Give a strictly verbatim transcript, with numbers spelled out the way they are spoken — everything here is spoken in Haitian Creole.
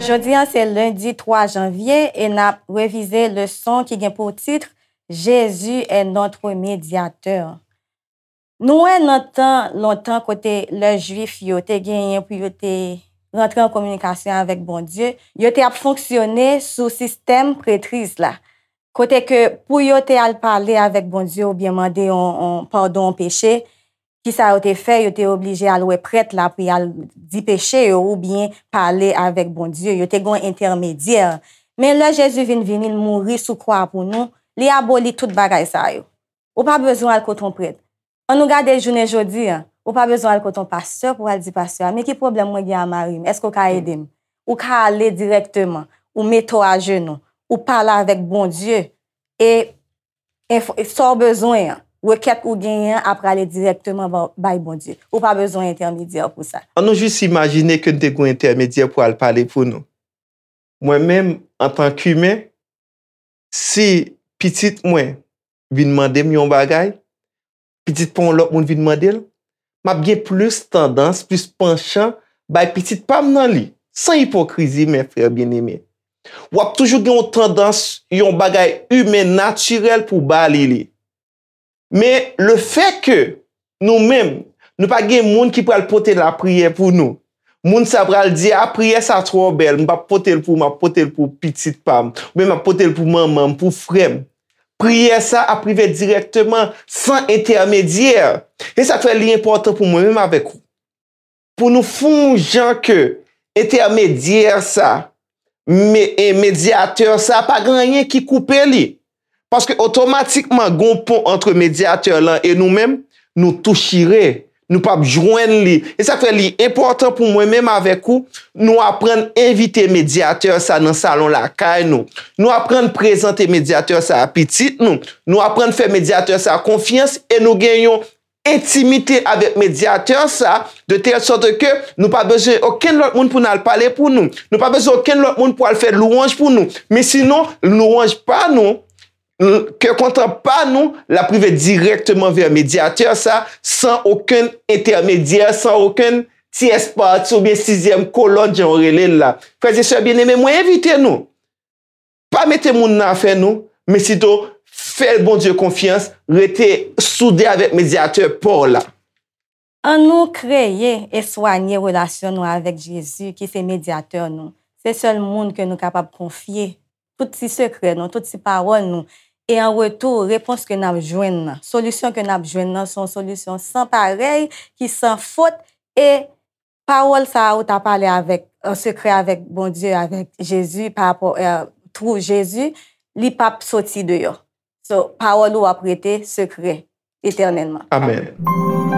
Jodi a se lendi twa janvye e n ap revize leson ki gen pou tit Jésus est notre médiateur. Nou wè nan tan lontan kote lè Jwif yo te genyen pou yo te rantre an kominikasyon avèk Bondye, yo te ap fonksyone sou sistèm prètriz la. Kote ke pou yo te al pale avèk Bondye oubyen mande yon, yon padon yon peche, kisa yo te fè? Yo te oblije al wè prèt la pou y al di peche yo oubyen pale avèk Bondye. Yo te gen yon entèmedyè. Men lè Jezi vin vini, l mouri sou kwa pou nou, li aboli tout bagay sa yo. Ou pa bezwen al kote yon prèt. An nou gade jounen jodi a, ou pa bezwen al kote yon pastè pou al di pastè a, men ki pwoblèm mwen gen a mari m? Èske w ka ede m? Ou ka ale dirèkteman, ou mete w ajenou, ou pale avèk Bondye, e enfo- sa w bezwen an, rekèt ou genyen an ap prale dirèkteman ba- bay Bondye. Ou pa bezwen entèmedyè pou sa. An nou jis imajine ke n te gen yon entèmedyè pou al pale pou nou. Mwen menm, antan k imen, si pitit mwen vin mande m yon bagay, pitit pa yon lòt moun vin mande l, m ap gen plis tandans, plis panchan bay pitit pa m nan li. San ipokrizi, men frè byeneme. W ap toujou gen yon tandans, yon bagay imen natirèl pou w ba li li. Men lefètke nou menm, nou pa gen moun ki pral pote lapriyè pou nou, moun sa pral di, a, priyè sa twò bèl, m p ap pote l pou ou, m ap pote l pou pitit pa m, oubyen m ap pote l pou manman m, pou frè m. Priyè sa ap rive dirèkteman, san entèmedyè. E sa k fè li enpòtan pou mwen menm avèk ou, pou nou fè yon jan ke entèmedyè sa, me- e medyatè sa, pa gen anyen ki koupe li. Paske otomatikman, gen yon pon ant medyatè lan e nou menm, nou tou chire. Nou p ap jwenn li. E sa k fè li enpòtan pou mwen menm avèk ou, nou aprann envite medyatè sa nan salon lakay nou. Nou aprann prezante medyatè sa a pitit nou. Nou aprann fè medyatè sa a konfyans e nou gen yon entimite avèk medyatè sa, de tèl sòt ke nou pa bezwen okenn lòt moun pou n al pale pou nou. Nou pa bezwen okenn lòt moun pou al fè lwanj pou nou. Men sinon, lwanj pa nou, l- kè kontan pa nou, l ap rive dirèkteman vè medyatè sa, san okenn entèmedyè, san okenn tyès pati oubyen sizyèm kolòn, jan yo rele l la. Frè e sè byeneme, mwen envite nou. Pa mete moun nan afè nou, men sito fè Bondye konfyans, rete soude avèk medyatè pa w la. An nou kreye e swanye relasyon nou avèk Jezi, ki se medyatè nou. Se sèl moun ke nou kapab konfye tout ti sekrè nou, tout ti pawòl nou. E an retou, repons ke n ap jwenn nan, solisyon ke n ap jwenn nan, se yon solisyon san parèy, ki san fot, e pawòl sa a ou ta pale avèk, an sekrè avèk Bondye, avèk Jezi, pa rapò, eh, through Jezi, li p ap soti deyò. So, pawòl ou ap rete sekrè etènèlman. Amèn.